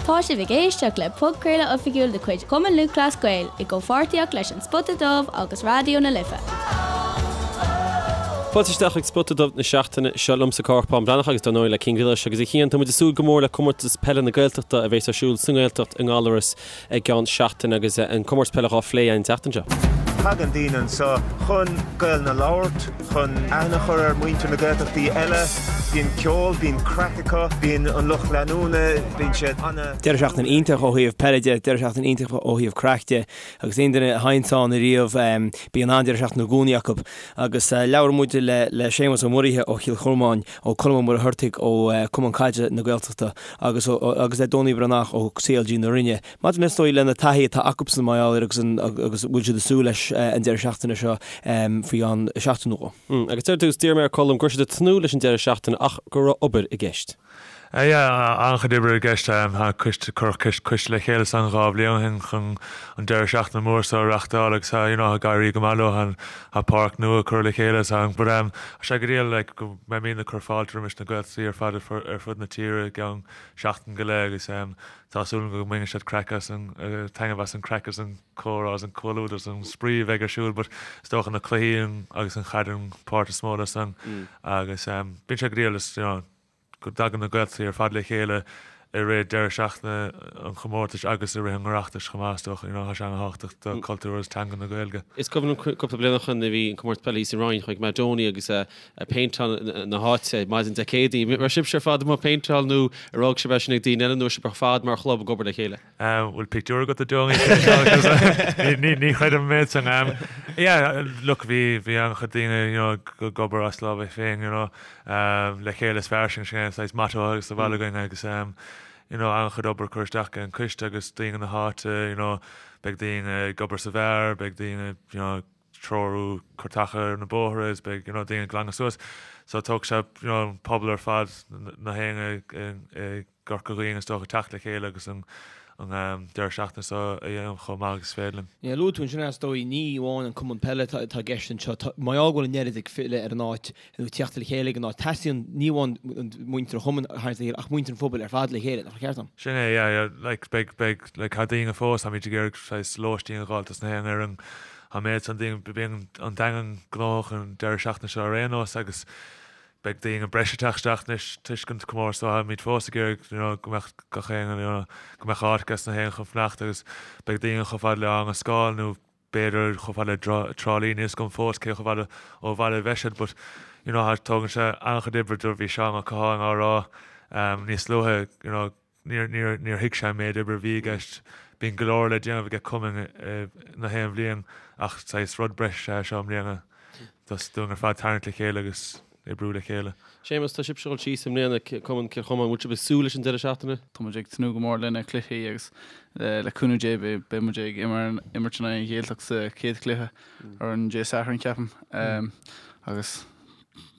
Tá sibh ag éisteacht le podchraoladh oifigiúil de chuid Chumann Lúthchleas Gael i gcomhpháirtíocht leis An Spota Dubh agus Raidió na Life. Fáilte isteach chuig Spota Dubh na seachtaine seo liomsa Cárthach Bán Breathnach agus dar ndóigh le Cian Ghillis agus a Chian, tá muid ag súil go mór le Comórtas Peile na Gaeltachta a bheas ar siúl sa nGaeltacht i nGallaras i gceann seachtaine agus an comórtas peile dhá phlé an tseachtain seo. Tagann daoine anseo chun Gaelainn a labhairt, chun aithne a chur ar mhuintir na Gaeltachtaí eile. Bíonn ceol, bíonn craic acu, bíonn an lucht leanúna, bíonn siad ana. Deireadh seachtaine iontach ó thaobh peile de, deireadh seachtaine iontach ó thaobh craic de agus aon duine a théanns ann ariamh bíonn an-deireadh seachtaine i gcónaí acu. Agus labhair muid le Séamus Ó Muirithe ó Chill Chormáin, ó Colm Ó Muircheartaigh ó Cumann Caide na Gaeltachta agus agus le Donie Breathnach ó CLG na Rinne. Maidir le is dóigh lena taithí atá acubsan mar gheall air agus an agus bhfuil siad ag súil leis an deireadh seachtaine seo faoi cheann seachtain nó dhó. Agus ar dtús, d'iarr mé ar Colm go raibh siad ag tnúth leis an deireadh seachtaine ach go raibh obair i gceist. Yeah, an-chuid oibre i gceist. Tá coiste, cuireadh coiste le chéile san 2 bhliain ó shin chun an deireadh seachtaine mór seo a reachtáil agus tá, you know, ag éirí go maith leo. Tá páirc nua curtha le chéile so but tá sé go diail like go mbeimid ag cur fáilte roimis na Gaeltachtaí ar fad ar fud na tíre i gceann seachtain go leith agus tá súil agam go mbainfidh siad craic as an, taitneamh as an craic agus an comhrá agus an comhluadar agus an spraoi a bheidh ar siúl but is dócha na cluichí agus an chaid an páirt is mó de san agus bíonn sé go diail is, you know, go dtagann na Gaeltachtaí ar fad le chéile i rith deireadh seachtaine an chomórtais agus i rith an Oireachtais chomh maith, is dócha. You know, tá sé an-thábhachtach do cultúr agus teanga na Gaeilge. Is cuimhin liom cúpla bliain ó shin a bhí an comórtas peile thíos sa Rinn, chuaigh mé Donie agus ag péinteáil na háite maidin Dé Céadaoin. Raibh sibhse ar fad amuigh ag péinteáil nó ar fhág sibh é sin ag daoine eile nó raibh sibh ar fad mar chlub ag obair le chéile? Bhfuil pictiúr agat de Donie? Ní chreidim an méid san. Yeah, look, bhí bhí an-chuid daoine, you know, ag obair as lámha féin, you know, le chéile is fearr sin, sin é an saghas motto agus sa bhaile againn agus, you know, an-chuid obair curtha isteach ag an coiste agus daoine na háite, you know, beidh daoine ag obair sa bheár, beidh daoine, you know, treorú cur taca ar na bóithre is beidh, you know, daoine ag glanadh suas. So tógfaidh sé, you know, an pobal ar fad, na héinne i gCorca Dhuibhne is dócha teacht le chéile agus an deireadh seachtaine seo a dhéanamh chomh maith agus is féidir linn. Yeah, luaigh tú ansin is dóigh, ní amháin an cumann peile atá i gceist anseo, tá, mar gheall go bhfuil an oiread ag filleadh ar an áit, nó ag teacht le chéile ag an áit, teastaíonn ní amháin muintir an chumainn a tharraingt le chéile ach muintir an phobail ar fad le chéile, nach ceart dom? Sin é, yeah, yeah, like, beidh, beidh, like, tá daoine fós, táimid ag iarraidh saghas lóistín a dh'fháil dos na haon fhoireann, an méid san daoine, bíonn an Daingean gnóthach an deireadh seachtaine seo ar aon nós agus beidh daoine breise ag teacht isteach anois toisc an comórtas so táimid fós ag iarraidh you know go mbeadh gach éinne you know go mbeadh áit ages na héinne chun fanacht agus beidh daoine chomh fada le Áth na Scáil nó b'fhéidir chomh fada le Trá Lí níl a fhios agam fós cé chomh fada ó bhaile a bheidh siad but you know tógann sé an-chuid oibre do bhí Seán Ó Catháin á rá níos luaithe you know Níor, níor, níor thuig sé an méid oibre a bhí i gceist. Bíonn go leor le déanamh aige cumainn na haon bhliain ach saghas rud breise é seo i mbliana dos dúinn ar fad tarraingt le chéile agus oibriú le chéile. Séamus, tá sibhse ag dul síos i mbliana, Cumann Cill Chomáin, bhfuil sibh ag súil leis an deireadh seachtaine? Tá muid ag tnúth go mór lena cluichí agus le cúnamh Dé beidh muid ag imirt in aghaidh an Ghaeltacht sa chéad chluiche ar an Dé Sathairn ceapaim agus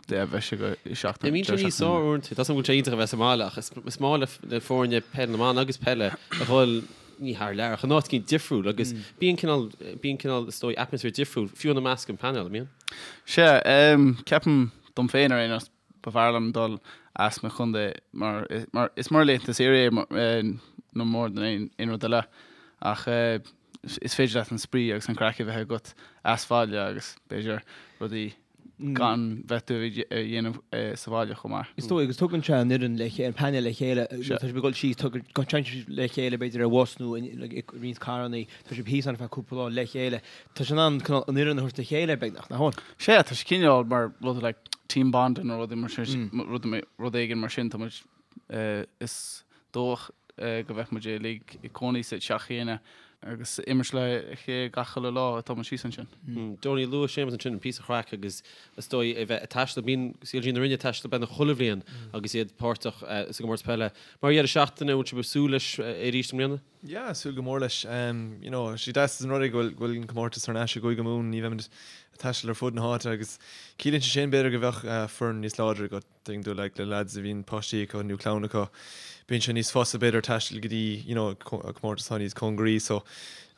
beidh sé go seachtain. Bíonn sé níos fearr uaireanta. Tá a fhios agam go bhfuil sé iontach a bheith sa mbaile ach is maith le foirne peile na mban agus peile a dhul ní thar lear ach in áit éicint difriúil agus bíonn cineál, bíonn cineál is dóigh atmaisféar difriúil fiú ina measc an painéal, an mbíonn? Sea, ceapaim dom féin ar aon nós ba bhfearr liom dul as mo chontae mar mar is mar laethanta saoire é no more than aon rud eile ach is féidir leat an spraoi agus an craic a bheith agat as bhaile agus b'fhéidir rudaí gan bheith tú a dhéanamh sa bhaile chomh maith. Is dóigh, agus tugann sé an fhoireann le chéile, an painéal le chéile, tá sibh ag dul síos, téann sibh le chéile b'fhéidir ar bhus nó i roinnt carrannaí, tá sibh thíos ann ar feadh cúpla lá le chéile. Tá sé in ann cineál an fhoireann a thabhairt le chéile beagnach, nach bhfuil? Sea, tá sé cineál mar rud like team bonding nó rudaí mar sin, rud éigin mar sin, tá muid, is dócha go mbeidh muid uilig ag cónaí sa teach chéanna agus imirt le chéile gach uile lá atá muid síos ansin. Donie, luaigh Séamus ansin an píosa chraic agus is dóigh a bheith ag taisteal, bíonn CLG na Rinne ag taisteal beagnach chuile bhliain agus iad páirteach sa gcomórtas peile. Mar dheireadh seachtaine, an bhfuil sibh ag súil leis arís i mbliana? Yeah, súil go mór leis. You know, sé deas an rud é go bhfuil go bhfuil an comórtas thar n-ais i gCúige Mumhan, ní bheimid ag taisteal ar fud na háite agus ciallaíonn sé sin b'fhéidir go bheadh foireann níos láidre agat. Tuigeann tú like le lads a bhíonn páistí acu nó clann acu, bíonn sé níos fusa b'fhéidir taisteal go dtí you know comórtas atá níos cóngaraí so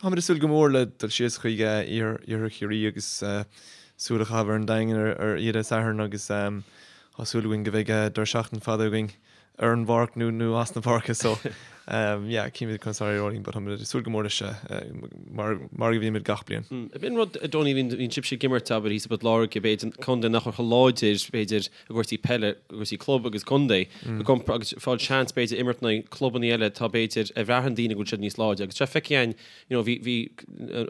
táimid ag súil go mór le dul síos chuig iarthar Chiarraí agus súil a chaitheamh ar an Daingean ar ar oíche Dé Sathairn agus tá súil againn go mbeidh deireadh seachtaine fada againn ar an bpáirc nó nó as na páirce so. Yeah, cífimid conas a éireoidh linn but táimid ag súil go mór leis mar mar a bhímid gach bliain. Ab in rud, a Donie, bhíonn sibhse ag imirt, abair, thíos i bPort Láirge, b'fhéidir, contae nach bhfuil chomh láidir, b'fhéidir, i gcúrsaí peile, i gcúrsaí club agus contae, i gcompar, agus fáil seans, b'fhéidir, imirt in aghaidh clubanna eile atá, b'fhéidir, a bhraitheann daoine go bhfuil siad níos láidre. Agus tá feicthe againn, you know, bhí, bhí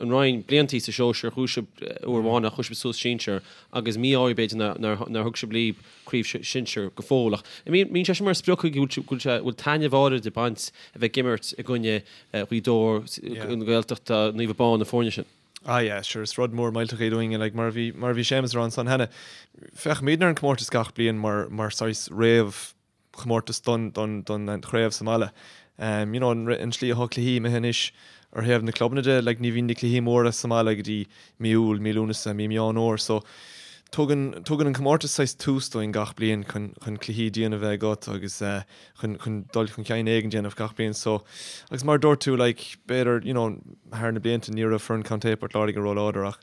an Rinn bliantaí sa sóisear, chuaigh sibh uair amháin ach chuaigh sibh suas sinsear agus mí-ádh b'fhéidir nár, nár, nár thug sibh libh craobh sinsear go fóill. Ach mbíonn sé sin mar sprioc go bhfuil sé, bhfuil taitneamh áirid ag baint a bheith ag imirt i gcoinne Ghaoth Dobhair, na Gaeltachta, Naomh Abán, na foirne sin. Ah yeah, sure, is rud mór millteach é dúinn, like, mar a bhí, mar a bhí Séamus a rá ansan cheana, féachaimidne ar an comórtas gach bliain mar, mar saghas réamh chomórtas don, don, don chraobh sa mbaile. Um, you know, an, an slí atá cluichí imithe anois ar thaobh na clubanna de, like, ní bhíonn na cluichí móra sa mbaile go dtí mí Iúil, mí Lúnasa, mí Meán Fhómhair, so tugann, tugann an comórtas saghas tús dúinn gach bliain chun, chun cluichí diana a bheith agat agus eh, chun, chun dul chun cinn éigin déanamh gach bliain. So, agus mar a dúirt tú, like, b'fhéidir, you know, thar na blianta ní raibh foireann Contae Port Láirge róláidir ach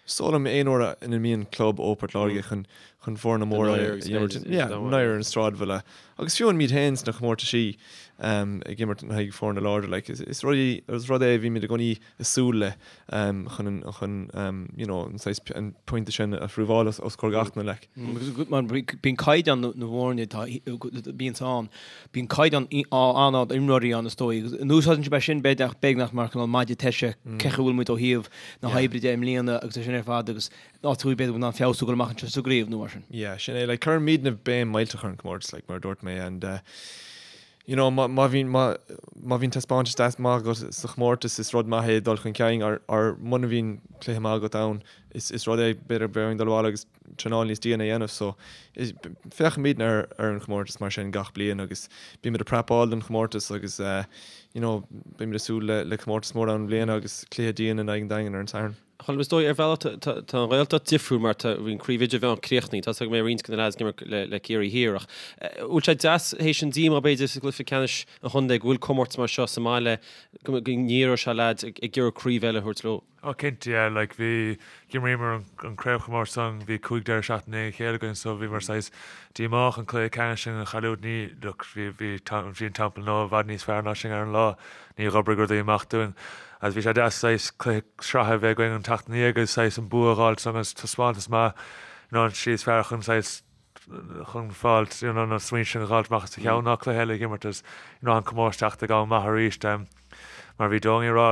Is dóigh liom aon uair ina mbíonn club ó Port Láirge chun chun foirne móra a imirt, yeah, náire ar an sráidbhaile. Agus fiú amháin muid féin sna comórtaisí ag imirt in aghaidh foirne láidre, like, is rud is rud é a bhímid i gcónaí ag súil le chun an chun you know an saghas an pointe sin a phrúbháil os os comhair gach duine, like. Mar bíonn caighdeán na bhfoirne atá bíonns ann, Bíonn caighdeán an-ard imreoirí ann is dóigh agus an úsáideann sibh é sin b'fhéidir beagnach mar cineál maide teise cén chaoi a bhfuil muid ó thaobh na hoibre de i mbliana agus é sin ar fad agus áit a bhfuil b'fhéidir in ann feabhsú dul amach anseo sa gcraobh nó mar sin. Yeah, sin é, like cuirimidne béim millteach ar an comórtas like mar a dúirt mé and uh, you know má má bhíonn má má bhíonn taispeántas deas maith agat sa chomórtas is rud maith é dul chun cinn or or muna bhíonn cluiche maith agat ann is is rud é b'fhéidir bheadh orainn dul abhaile agus traenáil níos diana a dhéanamh so féachaimidne ar ar an chomórtas mar sin gach bliain agus bímid ag prepáil don chomórtas agus you know beimid ag súil le le comórtas mór ann i mbliana agus cluiche dian in aghaidh an Daingin ar an Satharn. Colm, is dóigh ar bhealach tá tá an Ghaeltacht difriúil mar tá bhí an craobh idirmheánach críochnaithe, tá a fhios agam go mbeidh roinnt de na lads ag imirt le le Ciarraí Thiar ach bhfuil sé deas théis an díomá b'fhéidir sa gcluiche ceannais an chontae go bhfuil comórtas mar seo sa mbaile go go ndíreoidh sé lads ag ag iarraidh craobh eile a thabhairt leo? Oh cinnte yeah like bhí, d'imríomar an an craobhchomórtas san, bhí 5 deireadh seachtaine i ndiaidh a chéile againn so bhíomar saghas díomách an cluiche ceannais sin a chailliúint, ní, look bhí, bhí, bhí an Teampall Nua i bhfad níos fearr ná sinn ar an lá, ní dh'oibrigh rudaí amach dúinn agus bhí sé deas saghas cluiche sraithe a bheith againn an tseachtain ina dhiaidh agus saghas an bua a dh'fháilt san agus taispeántas maith you know an slí is fearr chun saghas chun fáilt you know na smaointe sin a dh'fháilt amach as do cheann ná cluiche eile a dh'imirt agus you know an comórtas teacht ag am maith arís mar bhí Donie ag rá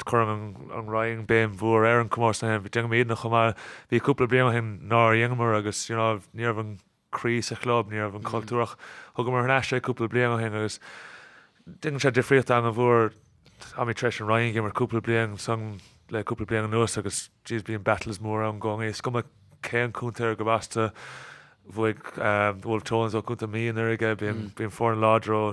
cuireann an Roinn béim mhór ar an comórtas ó shin déanaimidne chomh maith bhí cúpla bliain ó shin nár dheineamar agus you know ní raibh an croí sa chlub ní raibh an cultúr ach thugamar thar n-ais é cúpla bliain ó shin agus déanann sé difríocht an-mhór Táimid tar éis an Roinn a dh'imirt cúpla bliain san le cúpla bliain anuas agus jeez bíonn battles mór ann i gcónaí. Is cuma cén contae ar gurb as tú, bhuaigh Wolfe Tones ó Contae Mí anuraidh, bíonn bíonn foireann láidir ó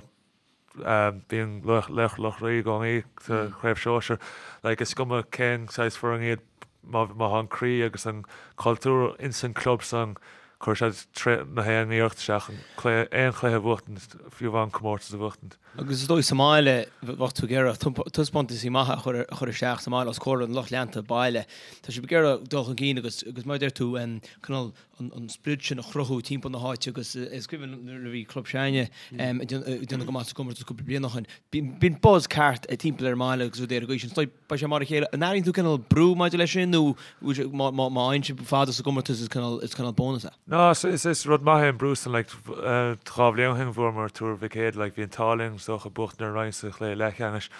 bíonn Laochra Loch Lao i gcónaí sa chraobh sóisir. Like is cuma cén saghas foireann iad má má tá an croí agus an cultúr ins an club san cuirfidh siad na haon iarracht isteach chun cluiche aon chluiche a bhuachtaint fiú amháin comórtas a bhuachtaint. Agus is dóigh sa mbaile, bheadh tú ag iarraidh taispeántaisí maithe a chur isteach sa mbaile os comhair an lucht leanta baile. Tá sibh ag iarraidh dul chun cinn agus, agus mar a deir tú, cineál an sprid sin a chruthú timpeall na háite agus is cuimhin liom nuair a bhí club s'againne ag déanamh go maith sa gcomórtas cúpla bliain ó shin, bíonn buzz ceart timpeall ar an mbaile agus rudaí ar an gcaoi sin. Is dóigh Beidh sé mar a chéile. An airíonn tú cineál brú maidir leis sin nó má fhaigheann sibh fada sa gcomórtas is cineál is cineál bónas é? No, is is rud maith é an brú san like 2 bhliain ó shin bhuamar Tuar Mhic Éadaigh like bhí an t-ádh linn is dócha buachtaint ar an Rinn sa chluiche leathcheannais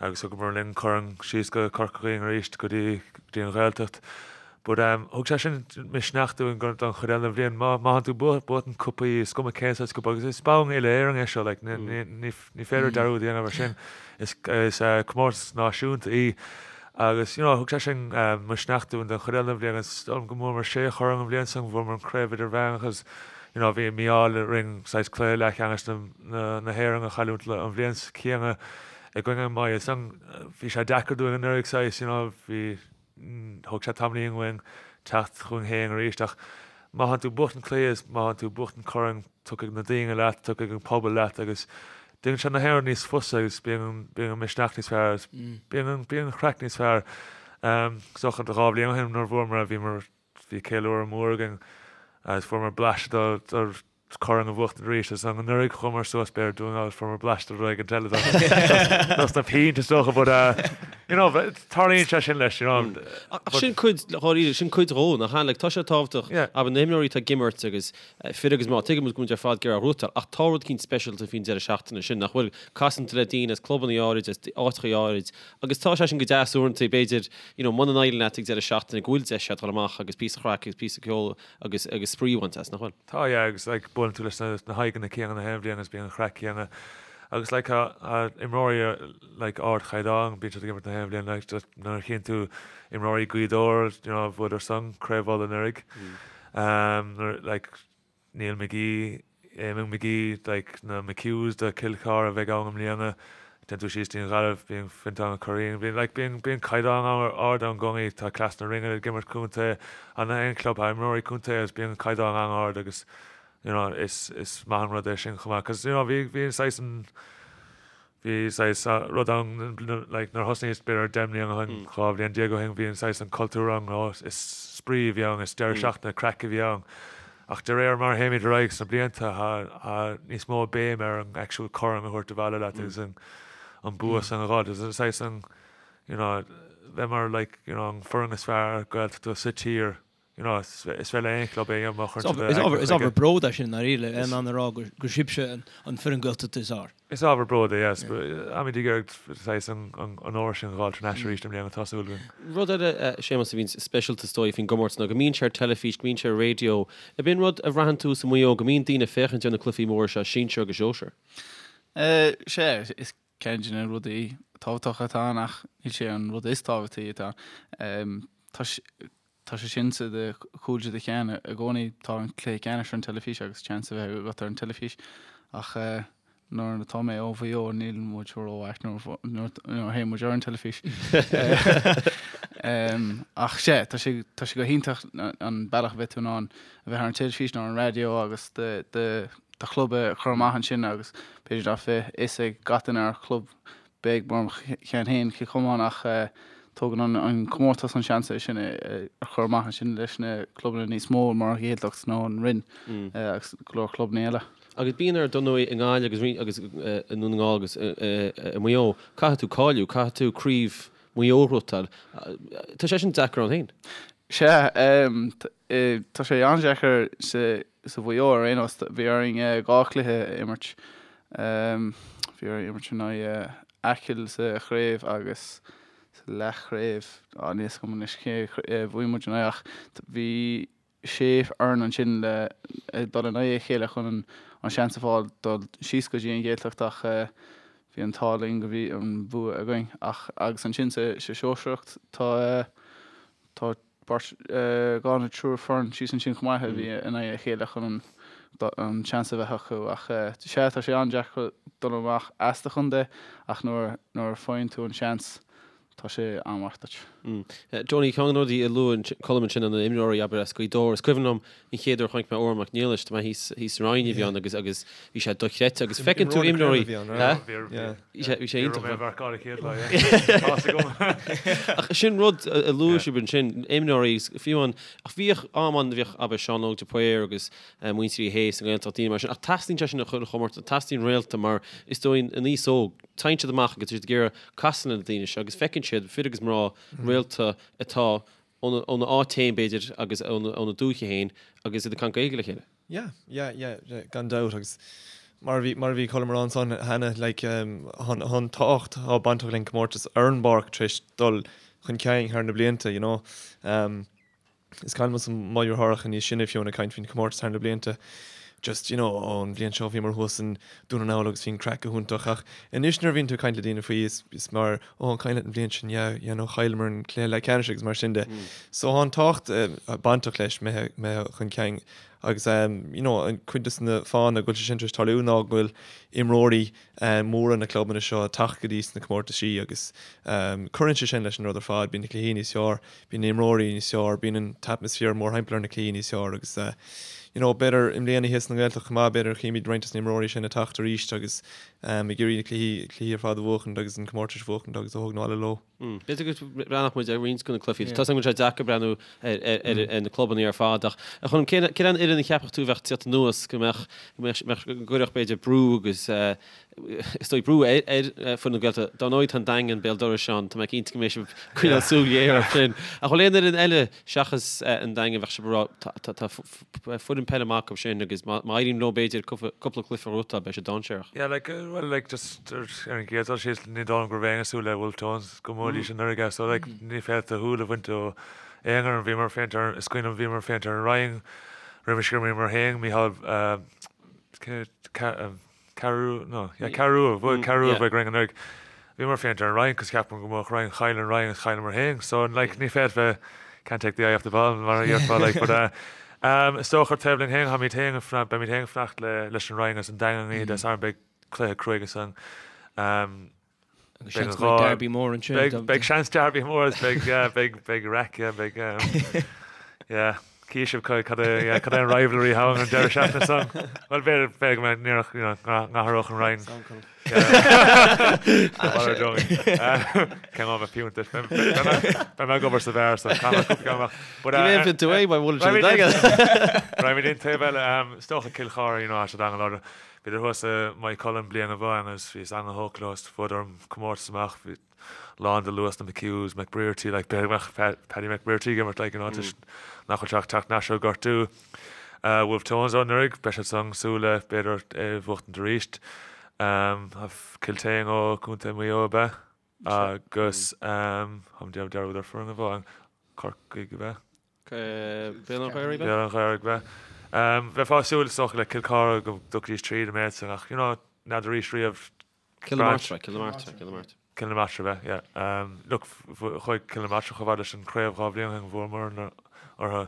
agus thugamar linn corn síos go Corca Dhuibhne arís go dtí go dtí an Ghaeltacht. But um thug sé sin misneach dúinn don chuid eile den bhliain. Má má thánn tú buachtaint cupaí is cuma cén saghas cupa agus is bonn uile-Éireann é seo like ní ní ní féidir dearúd a dhéanamh ar sin. Is is comórtas náisiúnta í agus you know thug sé sin misneach dúinn don chuid eile den bhliain agus is dóigh liom go mbuamar sé chorn an bhliain san, bhuamar an craobh idirmheánach agus you know bhí mí-ádh orainn saghas cluiche leathcheannais na na na hÉireann a chailliúint an bhliain chéanna i gcoinne Maigh Eo. San bhí sé deacair dúinn anuraidh saghas you know bhí Thóg sé tamaillín uainn teacht chugainn féin arís ach má thánn tú ag buachtaint cluiche is má thánn tú ag buachtaint corn tiocfaidh na daoine leat, tiocfaidh an pobal leat agus déanann sé na haon rud níos fusa agus bíonn bíonn an misneach níos fearr agus bíonn an bíonn an chraic níos fearr. Is dócha 2 bhliain ó shin nuair a bhuamar bhíomar bhí ceiliúradh mór againn agus fuaireamar blaiseadh de de. Corn a bhuachtaint arís agus anuraidh chuamar suas b'fhéidir Dún na nGall fuaireamar bleaist de rud éigin eile dos na pínte is dócha but you know tarlaíonn sé sin leis you know. Ach sin cuid dháiríre, sin cuid dhó nach ea? Like tá sé tábhachtach abair na himreoirí atá ag imirt agus fir agus mná, tuigim go bhfuil muid ar fad ag iarraidh gnóthachtáil ach tá rud eicínt speisialta faoin deireadh seachtaine sin nach bhfuil? Casann tú le daoine as clubanna áirid, as áiteacha áirid agus tá sé sin go deas uaireanta b'fhéidir you know muna n-éiríonn leat ag deireadh seachtaine go bhfuil deis agat dul amach agus píosa craic agus píosa ceoil agus agus spraoi a bhaint as, nach bhfuil? Tá, yeah, agus like buaileann tú leis na na haghaidheanna céanna na haon bhliain agus bíonn an chraic céanna agus like tá tá imreoirí like ardchaighdeán bíonn siad ag imirt na haon bhliain like just nuair a chíonn tú imreoirí Gaoth Dobhair you know bhuadar san Craobh Uladh anuraidh um nuair like Neil McGee Eamon McGee, like na McHughs de Chill Chartha a bheidh ann i mbliana, téann tú síos dtí an Ghaillimh, bíonn Fintán Ó Curraoin, bíonn like bíonn bíonn caighdeán an-ard ann i gcónaí, tá Cleas na Rinne ag imirt contae, an aon club, tá imreoirí contae agus bíonn an caighdeán an-ard agus you know is is maith an rud é sin chomh maith 'cause you know bhí bhí saghas an Bhí saghas rud ann like nuair a thosnaíos b'fhéidir 10 mbliana ó shin, 12 bhliain ó shin, bhí an saghas an cultúr ann, ó is spraoi a bhí ann, is deireadh seachtaine craic a bhí ann. Ach de réir mar a théimid ar aghaidh sna blianta, tá níos mó béim ar an actual corn a thabhairt abhaile leat agus an an bua san a dh'fháil. Agus saghas an, you know, bheith mar like, you know, an foireann is fearr Gaeltachta sa tír. You know, is féidir le aon chlub é a dhéanamh má chuireann siad a Is ábhar bród é sin, ndáiríre, le in ann a rá gur sibhse an foireann Gaeltachta is fhearr. Is ábhar bród é, yes. Táimid ag iarraidh saghas an onóir sin a dh'fháil thar n-ais arís i mbliana, tá súil againn. Rud eile, Séamus, a bhíonn speisialta is dóigh faoin gcomórtas ná go mbíonn sé ar teilifís, go mbíonn sé ar raidió. Ab in rud a bhraitheann tú i Maigh Eo, go mbíonn daoine ag féachaint ar na cluichí móra seo, sinsir agus sóisir? Sea, is ceann de na rudaí tábhachtacha atá ann ach níl sé an rud is tábhachtaí atá ann. Tá Tá sé sin sa do chúl de do cheann i gcónaí. Tá an cluiche ceannais ar an teilifís agus seans a bheith agat ar an teilifís ach nuair atá mé ó Mhaigh Eo níl muid rómhaith nuair a théann muid ar an teilifís. Ach sea, tá sé tá sé go hiontach an bealach a bheith tú in ann a bheith ar an teilifís nó ar an raidió agus do do do chlub a chur amach ansin agus b'fhéidir nach bheadh fhios ag gach duine ar chlub beag mar mo cheann féin, Cill Chomáin, ach tógann an comórtas an seans é sin a chur amach ansin leis na clubanna níos mó mar an Ghaeltacht nó an Rinn agus go leor clubanna eile. Agus bíonn ar ndóigh i nGaillimh agus agus i nDún na nGall agus i Maigh Eo, caithfidh tú cáiliú, caithfidh tú craobh Mhaigh Eo a ghnóthachtáil. Tá sé sin deacair ann féin. Sea, tá sé an-deacair sa Mhaigh Eo ar aon nós. Bhí orainn 2 chluiche a imirt. Bhí orainn imirt in aghaidh Acaill sa chraobh agus sa leathchraobh, níl a fhios agam anois cé a bhuaigh muid in aghaidh ach bhí sé fhoireann ansin le dul in aghaidh a chéile chun an seans a fháil dul síos go dtí an Ghaeltacht ach bhí an t-ádh linn go bhí an bua againn ach agus ansin sa sóisearacht tá Tá beirt, dhá nó triúr foireann síos ansin chomh maith a bhí in aghaidh a chéile chun an seans a bheith acu ach sea, tá sé an-deacair dul amach as do chontae ach nuair a faigheann tú an seans, tá sé an-mhaith duit. Johnny, ceann de na rudaí a luaigh Colm ansin na imreoirí abair as Gaoth Dobhair, is cuimhin liom an chéad uair a chonaic mé Odhrán Mac Niallais, tá mé thíos thíos sa Rinn a bhí ann agus agus bhí sé dochreidte agus feiceann tú imreoirí Bhí sé bhí sé iontach. Ach sin rud a luaigh sibh ansin, imreoirí fiú an ach bhíodh am ann bhíodh abair Seán Óg de Paor agus muintir Uí Shé sa nGaeltacht daoine mar sin ach teastaíonn sé sin sa chuile chomórtas, teastaíonn réalta mar is dóigh an aos óg, téann siad amach agus tá siad ag iarraidh casadh le na daoine seo agus feiceann siad fir agus mná réalta atá óna áit féin b'fhéidir agus óna dúiche féin agus iad ag caint Gaeilge le chéile. Yeah, yeah, yeah, yeah, gan dabht agus mar a bhí, mar a bhí Colm a rá ansan cheana, like, tá an tábhacht atá bainteach leis an comórtas ar an bpáirc tar éis dul chun cinn thar na blianta, you know. Um, is cuimhin liomsa mo dheartháireacha níos sine fiú ag caint faoin comórtas thar na blianta, just, you know, ó an bhliain seo bhíomar thuas in Dún na nGall agus bhí an craic go hiontach ach anois nuair a bhíonn tú ag caint le daoine faoi is, is mar, ó an cuimhin leat an bhliain sin, yeah, yeah, no, chailleamar an cluiche leathcheannais agus mar sin de. So tá an tábhacht uh, bainteach leis imithe, imithe chun cinn agus um, you know, an cuid de na fáthanna go bhfuil sé sin tar éis tarlú ná go bhfuil imreoirí um, móra na clubanna seo ag teacht go dtí sna comórtaisí agus um, cuireann sé sin leis an rud ar fad, bíonn na cluichí níos fearr, bíonn na imreoirí níos fearr, bíonn an t-atmaisféar mórthimpeall ar na cluichí níos fearr agus uh, you know, b'fhéidir i mbliana thíos sa nGaeltacht chomh maith, b'fhéidir chímid roinnt des na imreoirí sin ag teacht arís agus ag iarraidh na cluichí, cluichí ar fad a bhuachaint agus an comórtais a bhuachaint agus a thógaint abhaile leo. B'fhéidir go mbreathnódh muid ar roinnt de na cluichí. Tá a fhios agam go bhfuil sé deacair breathnú ar na clubanna ar fad ach a Choilm, cén an fhoireann a cheapfadh tú a bheadh ag tíocht anuas go mbeadh, go mbeadh, go gcuirfeadh b'fhéidir brú agus is dóigh brú ar foireann na Gaeltachta. Dar ndóigh tá an Daingean béal dorais ann, tá mé cinnte go mbeidh sibh ag coinneáil súil ghéar air sin. Ach bhfuil aon fhoireann eile seachas an Daingean a bheadh sibh ag rá tá foireann peile maith acu sin agus má éiríonn leo b'fhéidir cúpla cluiche a ghnóthachtáil beidh sé dainséarach. Yeah like well like just ar an gcéad dul síos ní dóigh liom go raibh éinne ag súil le Wolfe Tones go mbuafaidís anuraidh so like ní féadfá do shúil a bhaint ó aon fhoireann. Bhíomar ag féachaint ar is cuimhin liom bhíomar ag féachaint ar an Rinn roimis gur imríomar féin Micheál Ceathrú, no, yeah, Ceathrú, bhuaigh Ceathrú bhuaigh Rinn anuraidh. Bhíomar ag féachaint ar an Rinn cos cheapamar go mbuafadh Rinn, chaill an Rinn agus chailleamar féin. So, like, ní féadfá, can't take the eye off the ball mar a dhéarfá, like, but uh, um, is dócha ar taobh linn féin, táimid féin ag fanacht, beimid féin ag fanacht le, leis an Rinn agus an Daingean oíche Dé Sathairn, beidh cluiche cruaidh ansan. Um, Agus seans go mbeidh derby mór ansin. Beidh, beidh seans derby mór agus beidh, yeah, beidh, beidh raic, yeah, beidh, um, yeah, cífidh sibh cad cad é, yeah, cad é an rivalry atá ann an deireadh seachtaine san. Bhuel, b'fhéidir, b'fhéidir go mbeidh, ní raibh, you know, n-athródh an Rinn. Cén am a piúnta? Beidh mé ag obair sa bheár so caithfidh mé cúpla ceann amach. But, uh, Ní bheidh tú é, mar bhfuil sé daingean. Raghaimid an taobh eile, um, is dócha Cill Chartha, you know, tá siad an-láidir. Bhíodar thuas i Maigh Cuilinn bliain amháin agus bhíos an-thógtha leo is bhuadar an comórtas amach. Bhí lán de luas na McHughs, McBrearty, like b'fhéidir go mbeadh Paddy McBrearty ag imirt like you know toisc nach bhfuil sé ach teacht ar ais ó gortú. Wolfe Tones ó anuraidh, beidh siad san ag súil le b'fhéidir é a bhuachtaint arís. Kiltane ó Contae Mhaigh Eo ab ea? Agus táim ag déanamh dearúd ar foireann amháin, Corcaigh ab ea? Béal an Ghaorthaidh? Béal an Ghaorthaidh, ab ea. Bheifeá ag súil is dócha le Cill Chartha go dtiocfaidís tríd an méid san ach you know n'fheadar arís riamh. Cill na Martra, Cill na Martra, Cill na Martra. Cill na Martra, ab ea, yeah. Look, chuaigh Cill na Martra chomh fada leis an chraobh 2 bhliain ó shin, bhuamar orthu.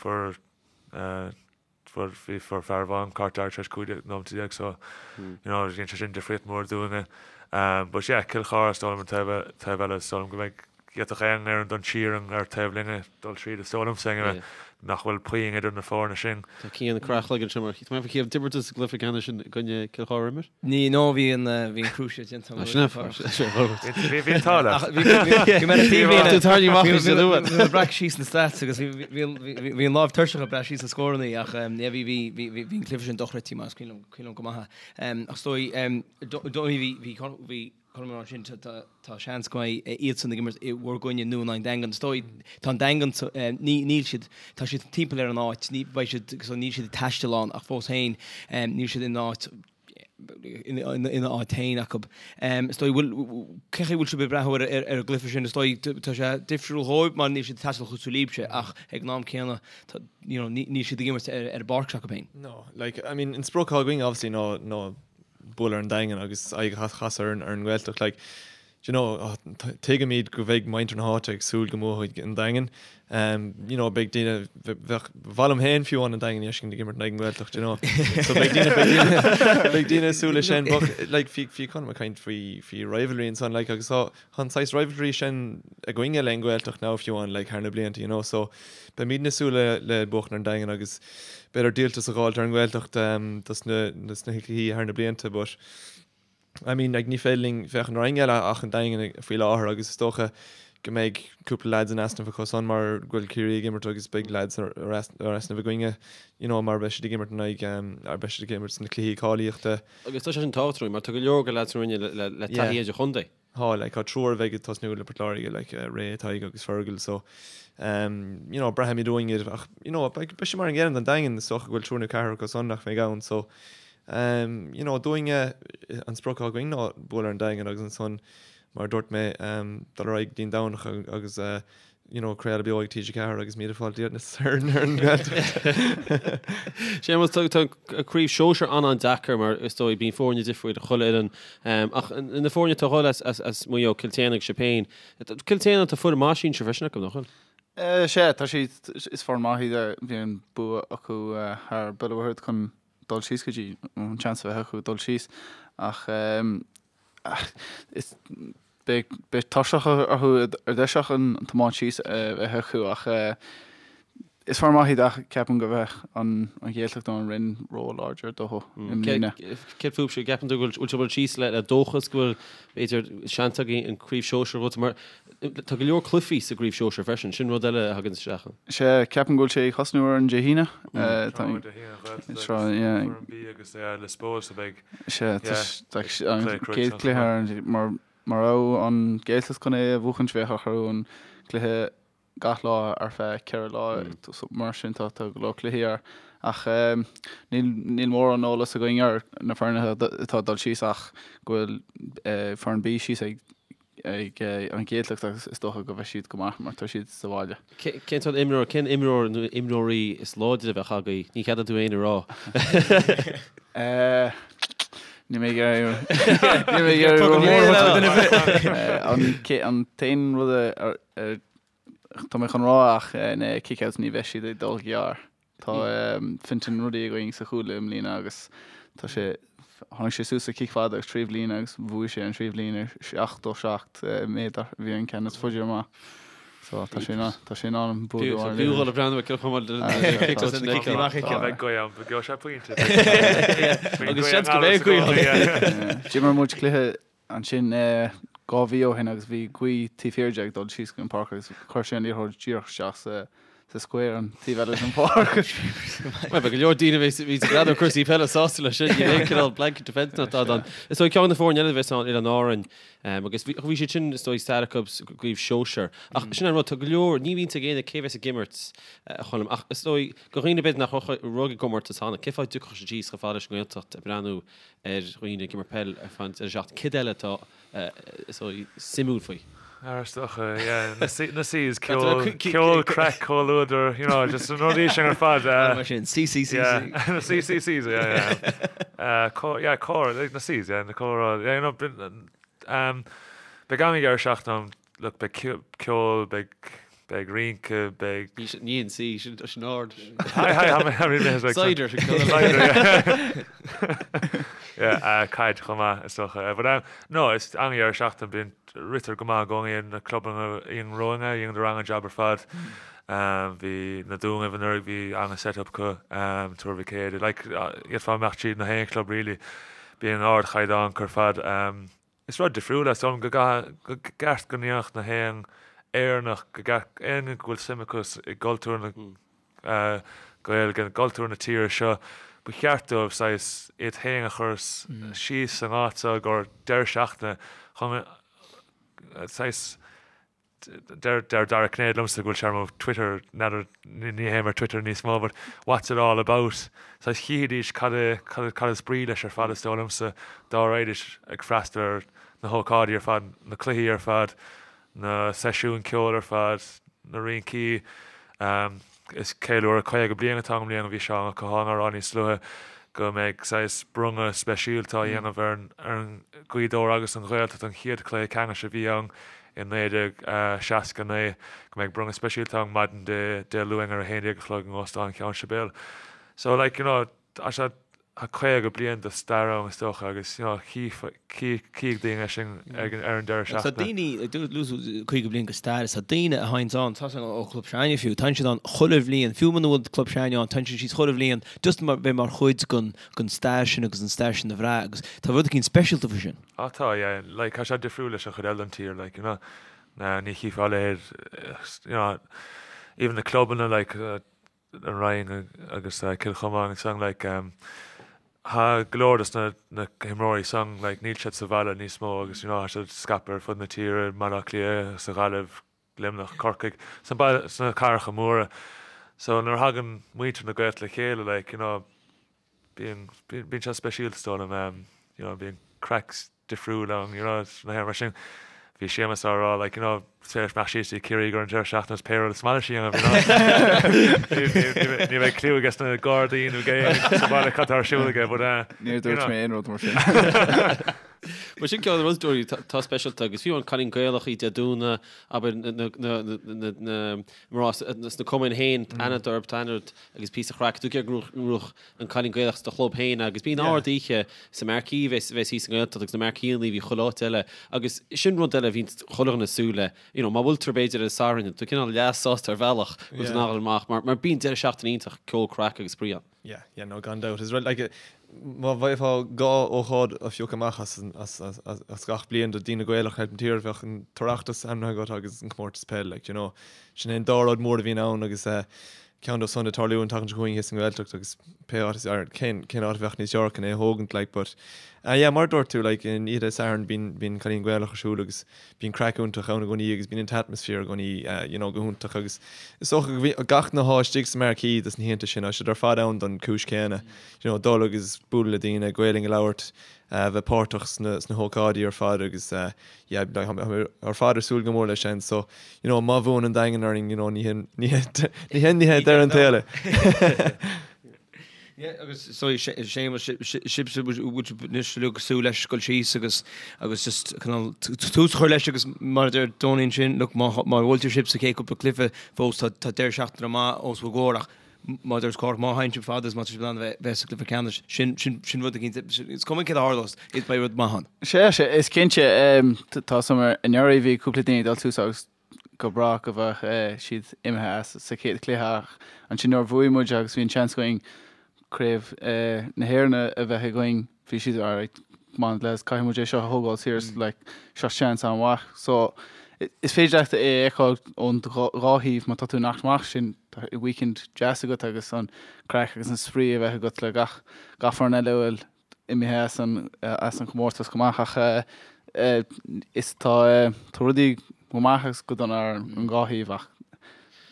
Fuair Fuair, bhí, fuair fear amháin cárta dearg tar éis 15 nóimeata so, you know, dhein sé sin difríocht mór dúinne. But yeah, Cill Chartha is dóigh liom an taobh, taobh eile is dóigh liom go mbeidh, d'fhéadfadh aon fhoireann don tír ar taobh linne dul tríd is dóigh liomsa anyway, nach bhfuil puinn idir na foirne sin. Tá Cian ag crá a chloigeann anseo mar, tá mé faoi d'imir tú sa gcluiche ceannais sin i gcoinne Cill Chartha imir? Ní, no, bhí an, bhí an cruciate déanta agam. Sin é, Bhí, bhí an t-ádh leat. Bhí, bhí, bhí mé ar an taobhlíne. Tú tarraingthe amach níos luaithe. Bhí mé ag breacadh síos na stats agus bhí, bhí, bhí, bhí an lámh tuirseach ag breacadh síos na scóranna ach yeah, bhí, bhí, bhí, bhí an cluiche sin dochreidte mar is cuimhin liom, cuimhin liom go maith é. Ach is dóigh, dóigh bhí, bhí, bhí Colm ag rá ansin, tá, tá seans go mbeidh iadsan ag imirt i bhur gcoinne nó in aghaidh an Daingean. Is dóigh, tá an Daingean, ní, níl siad, tá siad timpeall ar an áit, ní, beidh siad, so níl siad ag taisteal ann ach fós féin, níl siad in áit, ina áit féin acu. Is dóigh, bhfuil, cé chaoi bhfuil sibh ag breathnú ar an gcluiche sin? Is dóigh, tá sé difriúil dhóibh mar níl siad ag taisteal cosúil libhse ach ag an am céanna, tá, you know, níl siad ag imirt ar an bpáirc s'acu féin. No, like, I mean, an sprioc atá againn obviously ná, ná bualadh ar an Daingean agus aghaidh a chasadh ar an nGaeltacht. Like, do you know, tuigimid go bheidh muintir na háite ag súil go mbuafaidh an Daingean. Um, you know, beidh daoine, bheadh, ba mhaith liom féin fiú amháin an Daingean a fheiscint ag imirt in aghaidh an Ghaeltacht, do you know. So beidh daoine, beidh daoine, beidh daoine ag súil leis sin, but like, bhí, bhí Colm ag caint faoi, faoi rivalry ansan, like, agus tá, tá an saghas rivalry sin againne le an Ghaeltacht now fiú amháin, like, thar na blianta, you know, so beimidne ag súil le, le buachan ar an Daingean agus b'fhéidir díoltas a dh'fháilt ar an nGaeltacht um, dos na, dos na cluichí thar na blianta, but I mean, like, ní féidir linn féachaint ar éinne eile ach an Daingean faoi láthair agus is dócha go mbeidh cúpla lads in easnamh acu san mar go bhfuil Ciarraí ag imirt agus beidh lads ar easnamh againne, you know, mar beidh siad ag imirt in aghaidh, um, ar beidh siad ag imirt sna cluichí cáilíochta. Agus tá sé sin tábhachtach mar tá go leor de lads na Rinne le, le taithí idir-chontae. Tá, like, tá triúr a bheidh ag tosnú le Port Láirge, like, Ray, Tadhg agus Fergal, so, um, you know, braithimid uainn iad ach, you know, beidh, beidh sé mar an gcéanna don Daingean, is dócha go bhfuil triúr nó ceathrar acu san nach mbeidh ann, so, um, you know, dúinne, an sprioc atá againn ná bualadh ar an Daingean agus ansan, mar a dúirt mé, um, dul ar aghaidh go dtí an Domhnach agus, uh, you know, craoladh beo ag TG4 agus míle fáilte ar an nGaeltacht. Séamus, tá tá craobh sóisir an-an-deacair mar is dóigh bíonn foirne difriúil ag chuile fhoireann ach na foirne atá ag dhul as as as Maigh Eo, Cill tSéadhna agus sibh féin. Cill tSéadhna tá foireann maith sinsir freisin acu, nach bhfuil? Sea, tá siad, is foireann maith iad, bhí an bua acu thar Béal an Mhuirthead chun dul síos go dtí, an seans a bheith acu dul síos ach is Beidh beidh tuirseach orthu ar dtús ach an tiomáint síos a bheith acu ach Is foireann maith iad ach ceapaim go bheadh an Ghaeltacht nó an Rinn ró-láidir dóthu i mbliana. Céard fúibhse, an gceapann tú go bhfuil sibh síos le dóchas go bhfuil b'fhéidir seans againn an Craobh Shóisir a bhuaite mar tá go leor cluichí sa gCraobh Shóisir freisin, sin rud eile a thagann isteach. Sea, ceapaim go bhfuil sé ag thosnú ar an Dé hAoine. Tá an Dé hAoine an Ghaeltacht agus foireann B agus Lios Póil so beidh Sea, tá an chéad chluiche ar an mar mura raibh an Ghaeltacht chun é a bhuachaint bheadh orthu an cluiche gach lá ar feadh 4 lá mar sin tá go leor cluichí air ach níl níl mórán eolas againn ar na foirne atá ag dul síos ach go bhfuil foireann B síos ag ag an Ghaeltacht agus is dócha go bheidh siad go maith mar tá siad sa bhaile. Cén sórt imreoir, cén imreoir nó imreoirí is láidre a bheadh agaibh? Ní cheadaíonn tú aon a rá. Níl mé ag iarraidh níl mé ag iarraidh an t-aon rud a Tá mé chun rá ach na kick-outs ní bheidh siad ag dul gearr. Tá Fintan Ruddy againn sa chúl i mbliana agus tá sé, tháinig sé suas sa cic fada agus 3 bhliain agus bhuaigh sé an 3 bhliain ar 77 méadar, bhí an ceann is faide amach. So tá sé tá sé in ann an bua a bhí dhul a breathnú ag chomh maith le kick-outs na Beidh gaoth ann, gheobhaidh sé pointe. Agus seans go mbeidh gaoth ann. D'imir muid cluiche Ansin 2 mhí ó shin agus bhí gaoth taobh thiar de ag dul síos go an pháirc agus chuir sé an liathróid díreach isteach sa sa square an taobh eile den pháirc. Bhuel, beidh go leor daoine a bheas ag breathnú ar cúrsaí peile sásta leis sin, níl aon cineál blanket defence ná tada ann. Is dóigh ceann de na foirne eile a bheas ann, Oileáin Árainn, agus bhí bhí siad sin is dóigh stair acu sa gcraobh shóisir. Ach sin an rud, tá go leor, ní bhíonn ag éinne cé bheas ag imirt a Choilm, ach is dóigh do dhaoine b'fhéidir nach raibh ag gcomórtas cheana, cén fáth a dtiocfadh siad síos chomh fada leis an nGaeltacht ag breathnú ar dhaoine ag imirt peil ar feadh an deireadh seachtaine. Céard eile atá suimiúil faoi? Is dócha, yeah, na C's, ceol, ceol, craic, comhluadar, you know, just na rudaí sin ar fad. Mar sin, C, C, C, C. Na C, C, C's, yeah, yeah. Yeah, comhrá, like na C's, yeah, na comhrá, yeah, you know, um, beidh an-deireadh seachtaine ann, look, beidh ceol, beidh Beidh rince, beidh. Ní an C, sin sin ard. Hi, hi, how many minutes? Cider. Cider, yeah. Yeah, caid chomh maith, is dócha. But um, no, is an-deireadh seachtaine, bíonn ritear go maith i gcónaí na clubanna i romhainn, dhéanadar an-jab ar fad. Um, bhí na Dúnaibh anuraidh, bhí an-set-up acu, um, Tuar Mhic Éadaigh, like, d'fhéadfá imeacht tríd na haon chlub really, bíonn ardchaighdeán acu ar fad. Um, Is rud difriúil é, is dóigh liom go gcaithfidh, go gceart go ndéanfadh na haon Éireannach, go gceart éinne go bhfuil suim acu i gcultúr na Gaeilge, i gcultúr na tíre seo, ba cheart dóibh saghas iad féin a chur síos san áit seo i gcomhair deireadh seachtaine chun saghas Deir Dara Cinnéide liomsa go bhfuil sé ar mo Twitter, n'fheadar, ní théim ar Twitter níos mó, but what's it all about? Saghas chífidís cad é, cad is brí leis ar fad is dóigh liomsa, dá raghaidís ag freastal ar na hócáidí ar fad, na cluichí ar fad, na seisiúin ceoil ar fad, na rincí. Is ceiliúradh 50 bliain atá ann i mbliana, bhí Seán Ó Catháin á rá níos luaithe go mbeidh saghas bronnadh speisialta á dhéanamh ar an Ghaoth Dobhair agus an Ghaeltacht, an chéad chluiche ceannais a bhí ann i 1969, go mbeidh bronnadh speisialta ann maidin Dé Luain ar 11 a chlog in Óstán Cheann Sibéal. So like, you know, tá sé, tá 50 bliain de stair ann is dócha agus, you know, chífidh daoine é sin ar an deireadh seachtaine. Tá daoine, luaigh tú 50 bliain de stair, tá daoine a théanns ann, tá ó Chlub s'againne fiú, téann siad ann chuile bhliain, fiú muna bhfuil club s'againne ann, téann siad síos chuile bhliain just mar bheith mar chuid den stair sin agus an stair sin a bhrath agus tá rud eicínt speisialta faoi sin. Ah tá, yeah, like tá sé difriúil leis an chuid eile den tír, like, you know, ní chífeá a leithéid, you know, even na clubanna, like, an Rinn agus Cill Chomáin agus san, like, tá go leor dos na na himreoirí san, like, níl siad sa bhaile níos mó agus, you know, tá siad scaipthe ar fud na tíre, Baile Átha Cliath, sa Ghaillimh, Luimneach, Corcaigh, sna baile, sna cathracha móra. So nuair a thagann muintir na Gaeltachta le chéile, like, you know, Bíonn, bíonn sé speisialta is dóigh liom, you know, bíonn craic difriúil ann, you know, na héireann mar sin. Bhí Séamus á rá, like, you know, is féidir imeacht síos dtí Ciarraí don deireadh seachtaine is pé rud is maith leis a dhéanamh, you know. Ní bheidh cliú aige sna Gardaí nó ag éinne sa bhaile cad tá ar siúl aige, but, Níor dúirt mé aon rud mar sin. Mar sin ceann de na rudaí atá speisialta agus fiú an Cailín Gaelach Dé Domhnaigh, abair na mná sna cumainn féin, aithne orthu, tá aithne ort agus píosa craic, tú ag iarraidh go ngnóthódh an Cailín Gaelach sa do chlub féin agus bíonn ard oíche sa marquee a bheas thíos sa nGaeltacht agus na marqueeanna a bhí chuile áit eile agus sin rud eile a bhíonn chuile dhuine ag súil le, you know, má bhuailtear b'fhéidir ar an Satharn, tú cineál leath sásta ar bhealach go bhfuil tú in ann a dhul amach mar bíonn deireadh seachtaine iontach, ceol, craic agus spraoi ann. Yeah, yeah, no, gan dabht. Is rud, like, má bheifeá dhá ócáid a phiocadh amach as, as, as, as, as gach bliain do daoine Gaelach thart an tír, bheadh an tOireachtas ainmnithe agat agus an comórtas peil, like, you know. Sin é an dá rud mór a bhíonn ann agus eh, ceann dóibh san ag tarlú an tseachtain seo chugainn thíos sa nGaeltacht agus pé áit is, ar, cén, cén áit a bheadh níos fearr chun é a thógaint, like, but, eh, yeah, mar a dúirt tú, like, an oíche Dé Sathairn bíonn, bíonn Cailín Gaelach ar siúl agus Bíonn craic iontach ann i gcónaí agus bíonn an t-atmaisféar i gcónaí you know go hiontach agus is dócha go bhí gach duine atá istigh sa marquee dos na hoícheanta sin, tá siad ar fad ann don chúis chéanna, you know dul agus bualadh le daoine, Gaelainn a labhairt, bheith páirteach sna sna hócáidí ar fad agus yeah like tá mé ar fad ar súil go mór leis sin so you know má bhuann an Daingean orainn you know ní hin ní hin ní hé deireadh an tsaoil é. Yeah, agus so Séamus, sibhse bhfuil sibh anois uilig ag súil leis dul síos agus agus just cineál tús a chur leis agus mar a deir Donie ansin, look, má má bhuailtear sibh sa chéad cúpla cluiche fós tá tá deireadh seachtaine maith os bhur gcomhair ach má deir Cork má théann sibh fada is má tá sibh in ann a bheith bheith sa gcluiche ceannais sin sin sin rud eicínt is cuma céard a tharlós is beidh rud maith ann. Sea, sea, is cinnte, tá a fhios agam anuraidh bhí cúpla daoine ag dul suas agus go breá go bheadh siad imithe as sa chéad chluiche ach ansin nuair a bhuaigh muid agus bhí an seans againn Craobh na hÉireann a bheith againn bhí siad alright come on lads caithfidh muid é seo a thógáil serious like seo seans an-mhaith so is féidir leat é a fheiceáil ón dhá thaobh má tá tú in amach sin tá weekend deas agat agus an craic agus an spraoi a bheith agat le gach gach foireann eile a bhfuil imithe as an as an chomórtas chomh maith ach is tá tá rudaí go maith agus go dona ar an dhá thaobh ach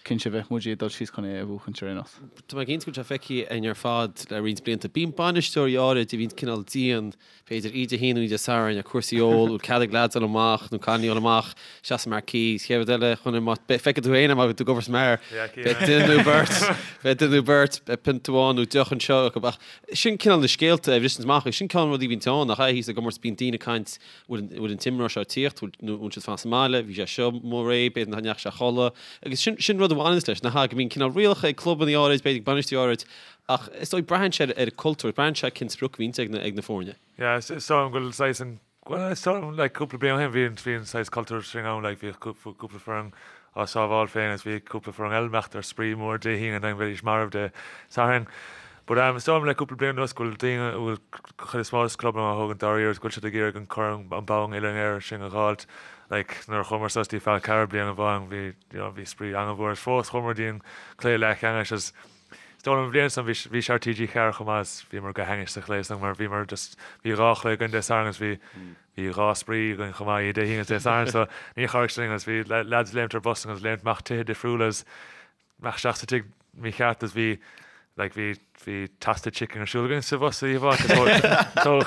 cinnte bheadh muid ag dul síos chun é a bhuachaint ar aon nós. Tá mé cinnte go bhfuil sé feicthe againn ar fad le roinnt blianta. Bíonn bainisteoirí áirid a bhíonn cineál dian, b'fhéidir Dé hAoine nó Dé Sathairn ar cúrsaí óil, bhfuil cead ag leaids dul amach nó cailíní dul amach isteach sa marquee, is chéad rud eile chun má feicfidh tú féin má bhí tú ag obair sa mbeár, beidh duine nó beirt, beidh duine nó beirt, beidh pionta amháin nó deoch anseo acu ach Sin cineál na scéalta a bhriseanns amach agus sin cineál an rud a bhíonn ann nach ea thíos i gcomórtas bíonn daoine ag caint bhfuil bhfuil an t-imreoir seo ag tíocht bhfuil nó bhfuil siad fanacht sa mbaile bhí sé seo amuigh aréir b'fhéidir nach ndeachaigh sé a chodladh agus sin sin rud a bhaineanns leis nach ea go mbíonn cineál rialacha ag clubanna áirid b'fhéidir ag bainisteoirí áirid ach is dóigh braitheann sé ar an cultúr braitheann sé cén sprioc a bhíonns ag na ag na foirne. Yeah is is dóigh liom go bhfuil saghas an Bhuel, is dóigh liom, like, cúpla bliain ó shin, bhí an, bhí an saghas cultúr sin ann, like, bhíodh cúpla foireann á sábháil féin agus bhí cúpla foireann eile imeacht ar spraoi mór Dé hAoine and then bheidís marbh Dé Sathairn. But, um, is dóigh liom le cúpla bliain anuas go bhfuil daoine, go bhfuil chuid is mó de clubanna á thógaint dáiríre agus go bhfuil siad ag iarraidh an corn, an bonn uile-Éireann sin a dh'fháilt. Like, nuair a chuamar suas dtí Fál Carrach bliain amháin, bhí, you know, bhí spraoi an-mhór agus fós chuamar dtí an cluiche leathcheannais agus Is dóigh liom an bhliain san bhí bhí sé ar TG4 chomh maith is bhíomar go hainnis sa chluiche san mar bhíomar just bhí dhá chluiche againn Dé Sathairn agus bhí bhí dhá spraoi againn chomh maith Dé hAoine agus Dé Sathairn so ní chabhraigh sin linn agus bhí lads léimt ar bus agus léimt amach tithe difriúla agus amach isteach sa tigh mícheart agus bhí like bhí bhí toasted chicken ar siúl againn sa bhus oíche amháin tóg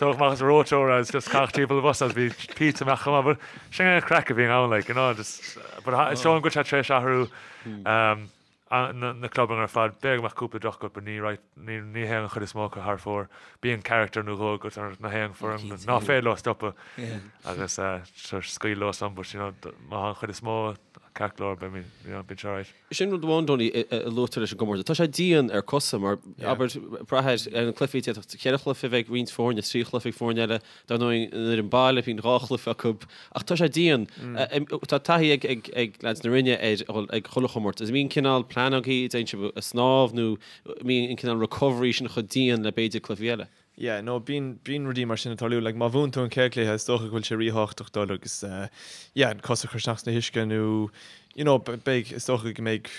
tóg amach as reoiteoir agus just caitheadh timpeall an bhus agus bhí pizza amach chomh maith but sin an craic a bhíonn ann like you know just but is dóigh liom go bhfuil sé tar éis athrú um, na clubanna ar fad. B'fhéidir go mbeadh cúpla droch-ghuth but ní right, ní ní théann an chuid is mó acu thar fóir. Bíonn character nó dhó agat ar na haon foireann ná féidir leo stopadh agus sure scaoil leo san but you know má tá an chuid is mó ceart go leor beidh you know bíonn sé alright. Sin rud amháin Donie a luaitear leis an gcomórtas. Tá sé dian ar cosa mar abair brath ar na cluichí d'fhéadfadh cheithre chluiche a bheith ag roinnt foirne, trí chluiche ag foirne eile. Dar ndóigh, an fhoireann baile, bíonn dhá chluiche acu, ach tá sé dian. Tá taithí ag ag leaids na Rinne ar dhul ag chuile chomórtas. An mbíonn cineál plean agaibh, dtéann sibh ag snámh nó an mbíonn an cineál recovery sin chomh dian le b'fhéidir cluichí eile? Yeah, no, bíonn, bíonn rudaí mar sin ag tarlú. Like, má bhuann tú an chéad chluiche, is dócha go bhfuil sé ríthábhachtach dul agus, yeah, an cos a chur isteach sna huisce nó, you know, beidh, is dócha go mbeidh,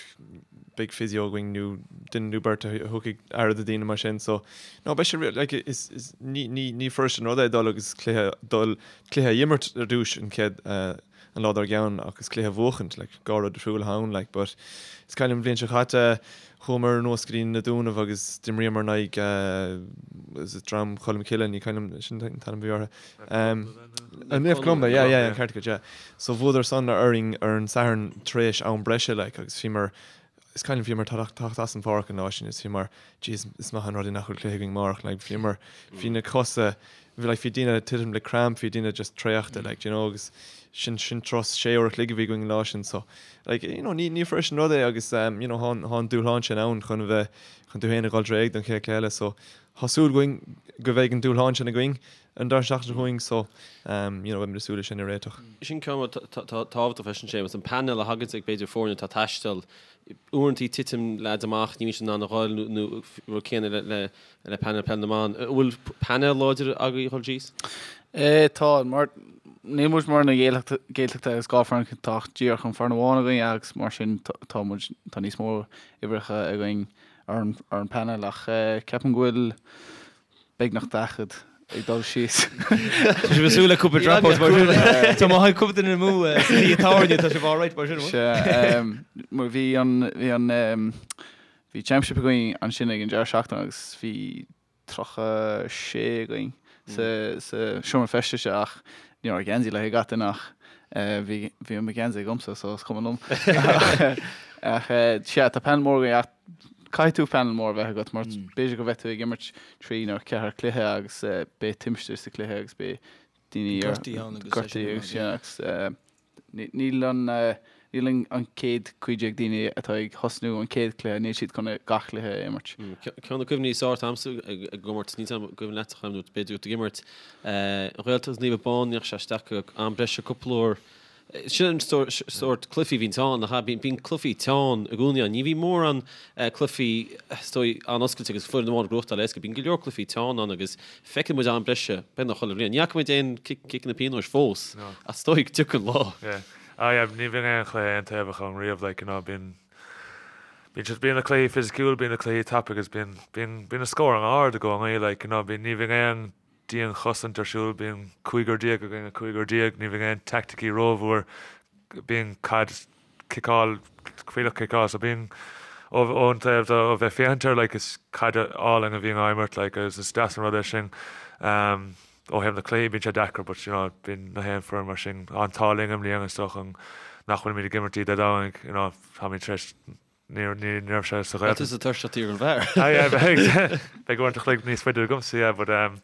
beidh physio againn nó duine nó beirt a thugfaidh aire do daoine mar sin. So, no, beidh sé, like, is, is, ní, ní, ní fuirist an rud é dul agus cluiche, dul, cluiche a imirt ar dtús an chéad, an lá dár gceann agus cluiche a bhuachaint, like, dhá rud difriúil atá ann, like, but is cuimhin liom an bhliain seo chaite, chuamar anuas go dtí na Dúnaibh agus d'imríomar in aghaidh, is it Dream Cholm Cille, ní cuimhin liom, sin an t-ainm a bhí orthu. Naomh Columba, yeah, yeah, an ceart agat, yeah. So bhuadar san orainn ar an Satharn tar éis am breise, like, agus bhíomar. Is cuimhin liom bhíomar ag teacht as an pháirc an lá sin is bhíomar jeez is maith an rud é nach bhfuil cluiche againn amárach like bhíomar bhí na cosa bhí like bhí daoine ag titim le cramp bhí daoine just traochta like you know agus sin sin turas sé uair a chloig a bhí againn an lá sin so like you know ní ní fuirist an rud é agus um, you know thá thá an dúshlán sin ann chun a bheith chun tú féin a dhul réidh don chéad cluiche eile so thá súil againn go bheidh an dúshlán sin againn an deireadh seachtaine seo chugainn so um, you know beimid ag súil leis sin a réiteach. Sin ceann tábhachtach freisin Séamus, an painéal a thagann ag b'fhéidir foirne atá ag taisteal, uaireanta titeann leaids amach, ní bhíonn siad in ann a dhul nó rud céanna le le le painéal peil na mban. An bhfuil painéal láidir agaibh a dhul síos? Eh tá, mar níl muid mar na Gaeltachta agus 2 foireann tá díreach an foireann amháin againn agus mar sin tá muid tá níos mó uimhreacha againn ar an ar an painéal ach ceapaim go bhfuil beagnach 40 ag dul síos. Tá sibh ag súil le cúpla dropouts mar sin. Tá má thagann cúpla duine amú sa teach tábhairne, tá sibh alright mar sin. Sea, mar bhí an, bhí an, bhí championship againn ansin ag an deireadh seachtaine agus bhí 36 againn sa, sa seomra feistis ach ní raibh geansaí le gach duine ach bhí, bhí mo gheansaí agamsa so is cuma liom. Ach sea, tá painéal mór againn ach Caithfidh tú painéal mór a bheith agat mar b'fhéidir go mbeidh tú ag imirt trí nó ceathair cluiche agus beidh timpiste sa cluiche agus beidh daoine Gortaithe ann agus gortaithe agus sin agus níl an níl an chéad 15 daoine atá ag thosnú an chéad cluiche, níl siad chun gach cluiche a imirt. Ceann de na cuimhní is fearr atá agamsa ag an gcomórtas, níl 's agam an cuimhin leat a Choilm nó b'fhéidir tú ag imirt, an Ghaeltacht agus Naomh Abán, ndeachaigh sé isteach go am breise cúpla uair. Sin an sórt cluichí a bhíonn ann, nach ea? Bíonn cluichí teann i gcónaí ann. Ní bhíonn mórán cluichí, is dóigh, an-oscailte agus foireann amháin ag gnóthachtáil éasca. Bíonn go leor cluichí teann ann agus feiceann muid am breise beagnach chuile bhliain. Ní fhaca muid aon ciceanna pionóis fós ach is dóigh go dtiocfaidh an lá. Yeah. Ah yeah, ní bhíonn aon chluiche aontaobhach ann riamh, like, you know, bíonn, bíonn siad, bíonn na cluichí fisiciúil, bíonn na cluichí tapa agus bíonn, bíonn, bíonn na scór an-ard i gcónaí, like, you know, bíonn, ní bhíonn aon dianchosaint ar siúl, bíonn cúigear déag i gcoinne cúigear déag, ní bhíonn aon teaicticí rómhór, bíonn caid ciceáil, fuílleach ciceáil, so bíonn ón taobh de ó bheith féachaint air like is caid álainn a bhíonn á imirt like agus is deas an rud é sin. Um, ó thaobh na cluichí bíonn sé deacair but you know bíonn na haon foireann mar sin an t-ádh linn i mbliana is dócha nach bhfuilimid ag imirt Dé Domhnaigh you know táimid tar éis Ní raibh sé sa Ghaeltacht. Tá tusa tuirseach ar an bhfear. Ah yeah, beidh beidh uaireanta chloig níos faide agamsa, yeah, but um,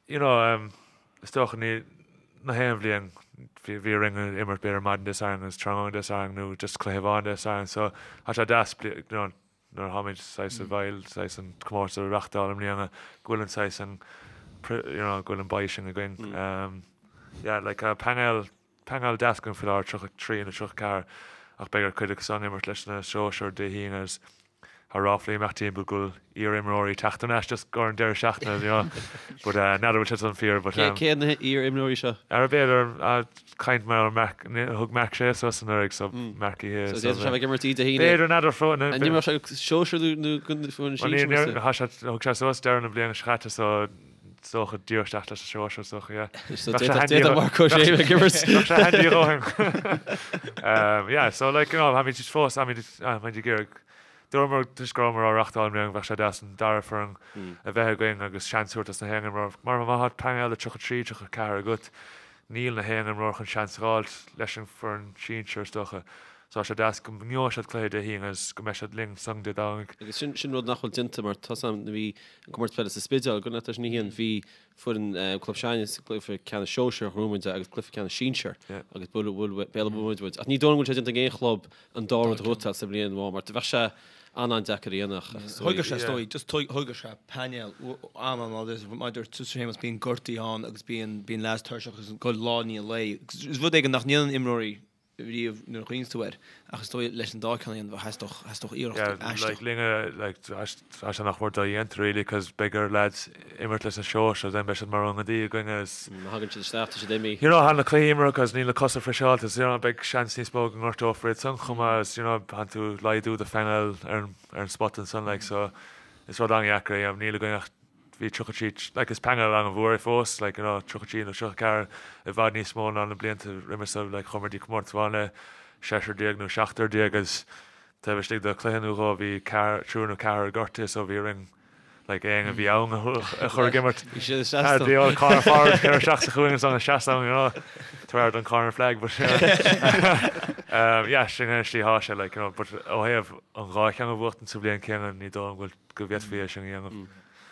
you know, um, is dócha ní na haon bhliain bhí bhí orainn imirt b'fhéidir maidin Dé Sathairn agus tráthnóna Dé Sathairn nó just cluiche amháin Dé Sathairn, so tá sé deas you know, nuair a tháimid saghas i bhfeighil saghas an comórtas a reachtáil i mbliana go bhfuil an saghas an you know, go bhfuil an báis sin againn. Um, yeah, like uh, painéal Painéal deas againn faoi láthair, 33 nó 34, ach beidh ar chuid acu san imirt leis na sóisir Dé hAoine agus tá ráflaí ag imeacht timpeall go bhfuil iar-imreoirí ag teacht thar n-ais just ar an deireadh seachtaine, you know. But uh, n'fheadar bhfuil sé san fíor, but um, Cé na hiar-imreoirí seo? Ar b'fhéidir uh, caint mar Mark, thug Mark Shea suas anuraidh, so Mark Uí Shé. So d'fhéadfadh sé bheith ag imirt Dé hAoine. B'fhéidir n'fheadar fó. An imreodh sé sóisir nó nó foireann sinsir? Thug sé suas deireadh na bliana seo caite, so Is dócha díreach isteach leis an sóisir, is dócha, yeah. So d'fhéadfadh Marc Ó Sé bheith ag imirt. Bheadh sé handy a dhóthain. Yeah, so like, you know, táimid fós, táimid ag iarraidh, dúramar toisc go rabhamar á reachtáil i mbliana go mbeadh sé deas an dara foireann a bheith againn agus seans a thabhairt dos na haon imreoir. Mar má tá painéal de 33, 34 agat, níl na haon imreoir chun seans a dh'fháilt leis an foireann sinsir, is dócha. So tá sé deas go ngeobhaidh siad cluiche Dé hAoine agus go mbeidh siad linn san Dé Domhnaigh. Agus sin sin rud nach bhfuil déanta mar tá 's a'm nuair a bhí an comórtas peile sa Spidéal, go leis an oíche bhí foireann club s'againne sa gcluiche ceannais sóisir ghnóthaigh muid agus cluiche ceannais sinsir agus bhuail bhuail Béal Átha muid muid. Ach ní dóigh liom go bhfuil sé déanta ag aon chlub an dá rud a ghnóthachtáil sa bhliain amháin mar bheadh sé an-an-deacair a dhéanamh ach is dóigh. Thógfadh sé is dóigh, just thógfadh sé painéal an-an-láidir mar a dúirt tusa Séamus bíonn gortaí ann agus bíonn bíonn leaids tuirseach agus ag dul lá i ndiaidh lae. Is rud éigin nach ndéanann imreoirí riamh nuair a chuimhníonns tú air, ach is dóigh leis an dá ceann a dhéanamh theastódh, theastódh iarracht Yeah, aisteach. like linne, like, tá sé nach mór dodhéanta really, cos beidh ar lads imirt leis na sóisir, then beidh siad mar ionadaí againn agus. Má thagann siad isteach, tá siad imithe. You know, tá na cluichí imeartha cos níl na cosa friseáilte, so you know, beidh seans níos mó go ngortófar iad san chomh maith agus you know, tánn tú ag laghdú do phainéal ar an, ar an spot ansan like, so is rud an-dheacair é, níl againn ach bhí 33, like is painéal an-mhór é fós, like you know 33 nó 34 i bhfad níos mó ná na blianta roimhe so, like chuamar dtí comórtas amháin le seisear déag nó seachtar déag agus taobh istigh de chluiche nó dhó bhí ceathrar, triúr nó ceathrar gortaithe so bhí orainn like éinne a bhí ann a chur ag imirt. Bhí siad ag seasamh. The old corner forward ag cur isteach sa chúinne ansan ag seasamh, you know, tar don corner flag but you know. Yeah, sin é an slí thá sé, like, you know, but ó thaobh an dhá cheann a bhuachtaint sa bhliain céanna, ní dóigh liom go bhfuil, go bhféadfaí é sin a dhéanamh.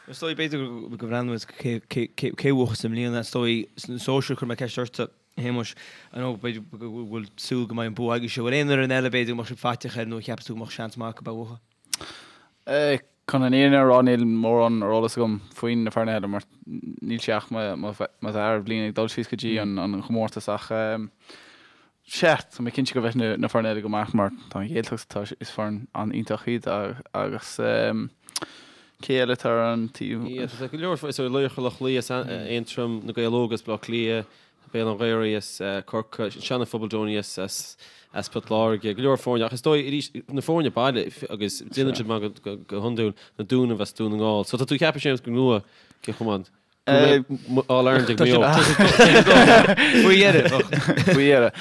Is dóigh, b'fhéidir go mbreathnóidh muid cé cé bhuachas i mbliana, is dóigh, sna sóisir, chuir mé ceist ortsa, a Shéamuis, I know b'fhéidir go bhfuil súil go mbeidh an bua agaibhse, bhfuil aon fhoireann eile b'fhéidir go mbeadh sibh faiteach air nó a cheapas tú go mbeadh seans maith acu a bhuachan? Chun an fhírinne a rá níl mórán ar eolas agam faoin na foirne eile mar níl sé ach mo dhara bliain ag dul síos go dtí an chomórtas ach sea, tá mé cinnte go bheidh na foirne eile go maith mar tá an Ghaeltacht, tá, is foireann an-iontach iad agus cé eile atá ar an taobh? Yeah, tá go leor, so Laochra Loch Lao as Aontroim, Na Gaeil Óga as Baile Átha Cliath, Béal an Ghaorthaidh as Corcaigh, Seana Phobal Donie as as Port Láirge, go leor foirne ach is dóigh arís na foirne baile agus déanann siad maith go hiondúil, na Dúnaibh as Dún na nGall. So tá tú ag ceapadh Séamus go mbuafaidh Cill Chomáin go mbeidh All Ireland ag Maigh Eo. Faoi dheireadh. Faoi dheireadh.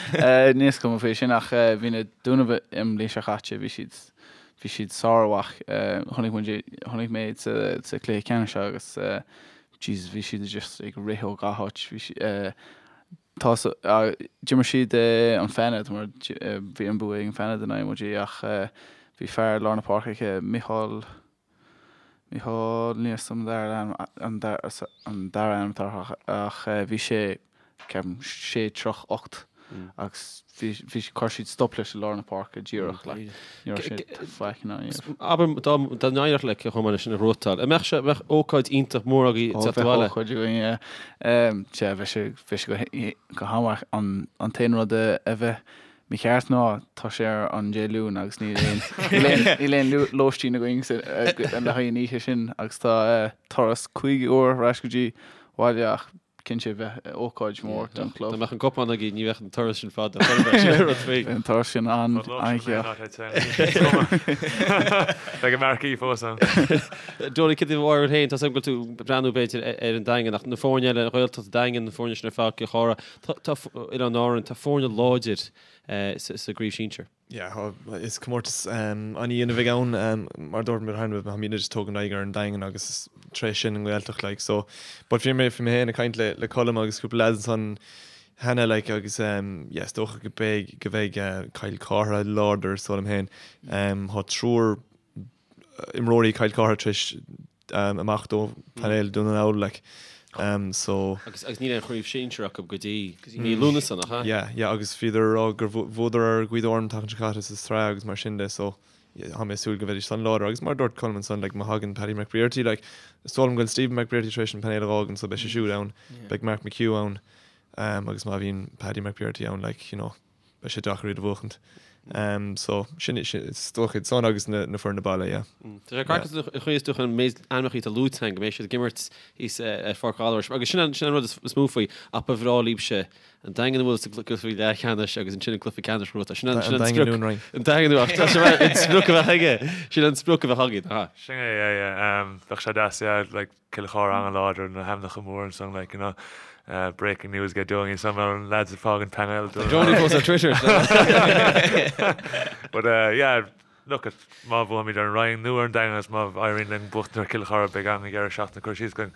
Níl 'fhios agam faoi sin ach bhí na Dúnaibh i mbliain seo chaite, bhí siad bhí siad sármhaith. Chonaic muid, chonaic mé iad sa chluiche ceannais seo agus Jesus, bhí siad just ag rith ó gach áit. Bhí si, tá sa, d'imir siad an Feinead mar bhí an bua ag an Feinead in aghaidh muid ach bhí fear lár na páirce aici, Micheál, Micheál, níl 'fhios agam an dara ainm, an dara, an dara ainm atá air ach bhí sé, ceapaim, sé troigh 8 agus bhí, bhí, chuir siad stop leis i lár na páirce díreach, like, ní raibh sé faic in ann a dhéanamh. Abair dá, dá n-éireodh le Cill Chomáin sin a ghnóthachtáil, an mbeadh sé, mbeadh ócáid iontach mór agaibh Ó, teacht bheadh abhaile? ócáid againn, yeah. Sea, bheadh sé, bheadh sé go, go han-mhaith. An, an t-aon rud a, a bheith mícheart ná tá sé ar an Dé Luain agus níl aon, níl aon, níl aon lóistín againn sa, le haghaidh an oíche sin agus tá turas 5 uair ar ais go dtí bhaile ach cinnte bheadh ócáid mhór don chlub. Dá mbeadh an cupán agaibh ní bheadh an turas sin fada. Sin rud faoi. Bheadh an turas sin an-ghearr. Beidh an marquee fós ann. Donie, cad é do bharúil féin? Tá 's agam go bhfuil tú ag breathnú b'fhéidir ar an Daingean ach na foirne eile, an Ghaeltacht, Daingean, na foirne sin ar fad, Cill Chartha, tá Oileáin Árann, tá foirne láidir sa gcraobh sinsir. Yeah, is comórtas an-dhian a bheidh ann. Mar a dúirt mé cheana, táimidne just ag tógaint aghaidh ar an Daingean agus tar éis sin an Ghaeltacht like so but bhí mé bhí mé féin ag caint le le Colm agus cúpla lads ansan cheana like agus yeah is dócha go beidh go bheidh Cill Chartha láidir is dóigh liom féin. Tá triúr imreoirí Chill Chartha tar éis imeacht ó painéal Dún na nGall like so. Agus agus níl aon chraobh sinsir acu go dtí mí Lúnasa nach ea? Yeah yeah agus bhíodar ag rá gur bhuadar ar Ghaoth Dobhair an tseachtain seo caite sa tsraith agus mar sin de so tá mé ag súil go mbeidís san láidir agus mar a dúirt Colm ansan like má thagann Paddy McBrearty like is dóigh liom go bhfuil Stephen McBrearty tar éis an painéal a fhágaint so beidh sé siúd ann beidh Mark McHugh ann agus má bhíonn Paddy McBrearty ann like you know beidh sé deacair iad a bhuachaint. So, sin, is dócha iad san agus na foirne baile, yeah. Tá sé craiceáilte an chaoi is dócha an méid ainmneacha atá luaite againn go mbeidh siad ag imirt thíos ar Pháirc Ghallarais agus sin an sin an rud is mó faoi ach ba bhreá libhse an Daingean a bhualadh sa gcluiche leathcheannais agus ansin an cluiche ceannais a ghnóthachtáil. Sin an sin an sprioc. An Daingean nó tá sé an sprioc a bheadh aige. Sin an sprioc a bheadh againn, aha. Sin é, yeah, yeah. Bheadh sé deas, yeah, like Cill Chartha an-láidir, na hainmneacha móra ansan, like, you know, breaking news get doing, some of the lads ag fágaint painéal. Tá Donie fós ar Twitter. But uh, yeah, look at má bhuaimid ar an Rinn nó ar an Daingean agus má éiríonn linn buachtaint ar Cill Chartha beidh an-dheireadh seachtaine curtha síos againn.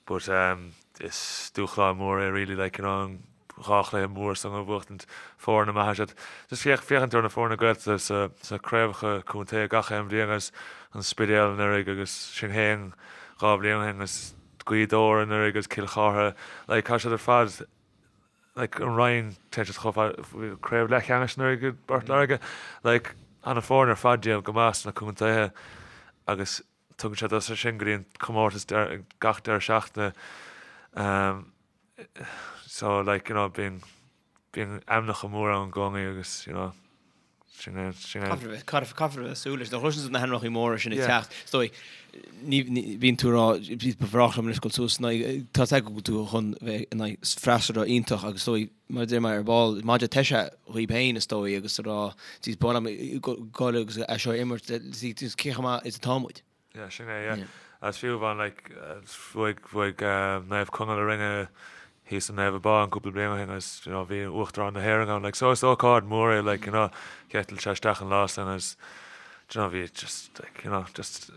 But um, is dúshlán mór é really, like, you know, an 2 chluiche mór san a bhuachtaint, foirne maithe siad. Just féach, féachaint ar na foirne Gaeltachta sa, sna craobhacha contae gach aon bhliain agus an Spidéal anuraidh agus sinn féin 2 bhliain ó shin agus Gaoth Dobhair anuraidh agus Cill Chartha, like tá siad ar fad, like an Rinn, téann siad chomh fada, craobh leathcheannais anuraidh i bPort Láirge, like tá na foirne ar fad déanamh go maith sna contaetha agus tugann siad as sin go dtí an comórtas gach deireadh seachtaine. Um, So like you know bíonn bíonn ainmneacha móra ann i gcónaí agus you know sin é sin é. Caithfear a bheith caithfear caithfear a bheith ag súil leis. Nuair a chloiseann tú na hainmneacha móra sin ag teacht is dóigh ní ní bíonn tú ag rá ba bhreá liom anois dul suas in aghaidh tá a fhios agat go bhfuil tú chun bheith in aghaidh freasúra iontach agus is dóigh mar a deir mé ar ball maide teise dhaoib féin is dóigh agus ag rá jeez ba mhaith liom dul agus é seo a imirt cé chomh maith is atá muid. Yeah, sin é, yeah. Agus fiú amháin, like, bhuaigh, bhuaigh Naomh Conaill orainne thíos i Naomh Abán cúpla bliain ó shin agus, you know, bhí Uachtarán na hÉireann ann, like, so is ócáid mhór é, like, you know, d'eitil sé isteach an lá san agus, do you know, bhí just, like, you know, just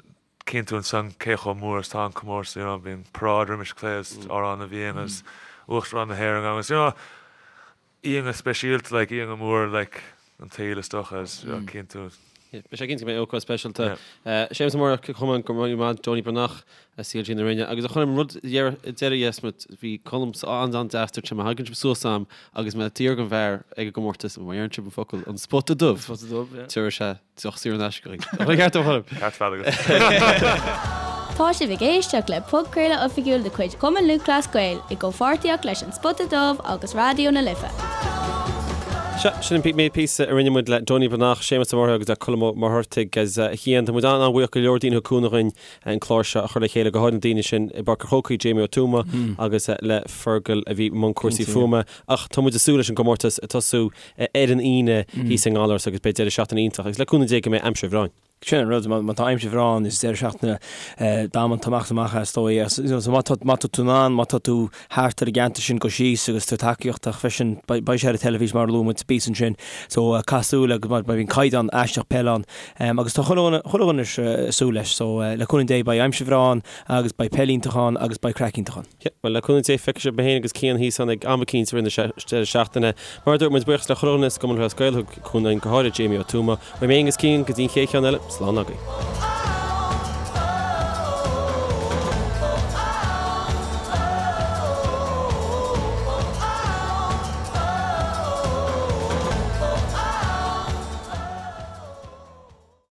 cíonn tú ansan cé chomh mór is atá an comórtas, you know, bhí an paráid roimis an cluiche agus Amhrán na bhFiann agus Uachtarán na hÉireann ann agus, you know, iontach speisialta, like, iontach mór, like. an tsaoil is dócha is cinnte. Beidh sé cinnte go mbeidh ócáid speisialta. Séamus Ó Muirthirtigh, Cill Chomáin, go raibh míle maith, Donie Breathnach, CLG na Rinne. Agus a Choilm, rud deiridh dheasmat, bhí Colm an-an-deas, dúirt sé má thagann sibh suas a'm agus mé d'iarraidh an bhfear ag an gcomórtas, má deireann sibh an focal an spota dubh, Spota dubh, yeah. tabharfaidh sé deoch saor in aisce againn. An ceart agam, a Choilm? Ceart fad agat. Tá sibh ag éisteacht le podchraoladh oifigiúil de chuid Chumann Lúthchleas Gael i gcomhpháirtíocht leis An Spota Dubh agus Raidió na Life. Sea, sin an méid píosa a rinne muid le Donie Breathnach, Séamus Ó Murchú agus le Colm Ó Muircheartaigh agus a Chian. Tá muid an-an-bhuíoch go leor daoine a thug cúnamh dhúinn an clár seo a chur le chéile, go háirid na daoine sin i bPáirc an Chrócaigh, Jamie Ó Tuama agus le Fergal a bhí i mbun cúrsaí fuaime. Ach tá muid ag súil leis an gcomórtas ag tosú ar an Aoine thíos i nGallaras agus beidh deireadh seachtaine iontach agus le cúnamh Dé go mbeidh aimsir bhreá ann. Sin an rud, má tá aimsir bhreá ann, is deireadh seachtaine damanta amach is amach é is dóigh. So má tá má tá tú in ann, má tá tú thart ar an gceantar sin, gabh síos agus tabhair tacaíocht ach freisin beidh sé ar an teilifís mar a luaigh muid píosa ansin. So caith súil agus mar bíonn caighdeán aisteach peile ann. Agus tá chuile dhuine chuile dhuine ag súil leis. So le cúnamh Dé beidh aimsir bhreá ann agus beidh peil iontach ann agus beidh craic iontach ann. Yeah, bhuel, le cúnamh Dé, feicfidh sibh mé féin agus Cian thíos ann ag am eicínt i rith na deireadh seachtaine. Mar a dúirt muid, buíochas le chuile dhuine sa gCumann Lúthchleas Gael a thug cúnamh dúinn, go háirid Jamie Ó Tuama. Uaim féin agus Cian, go dtí an chéad cheann eile, slán agaibh.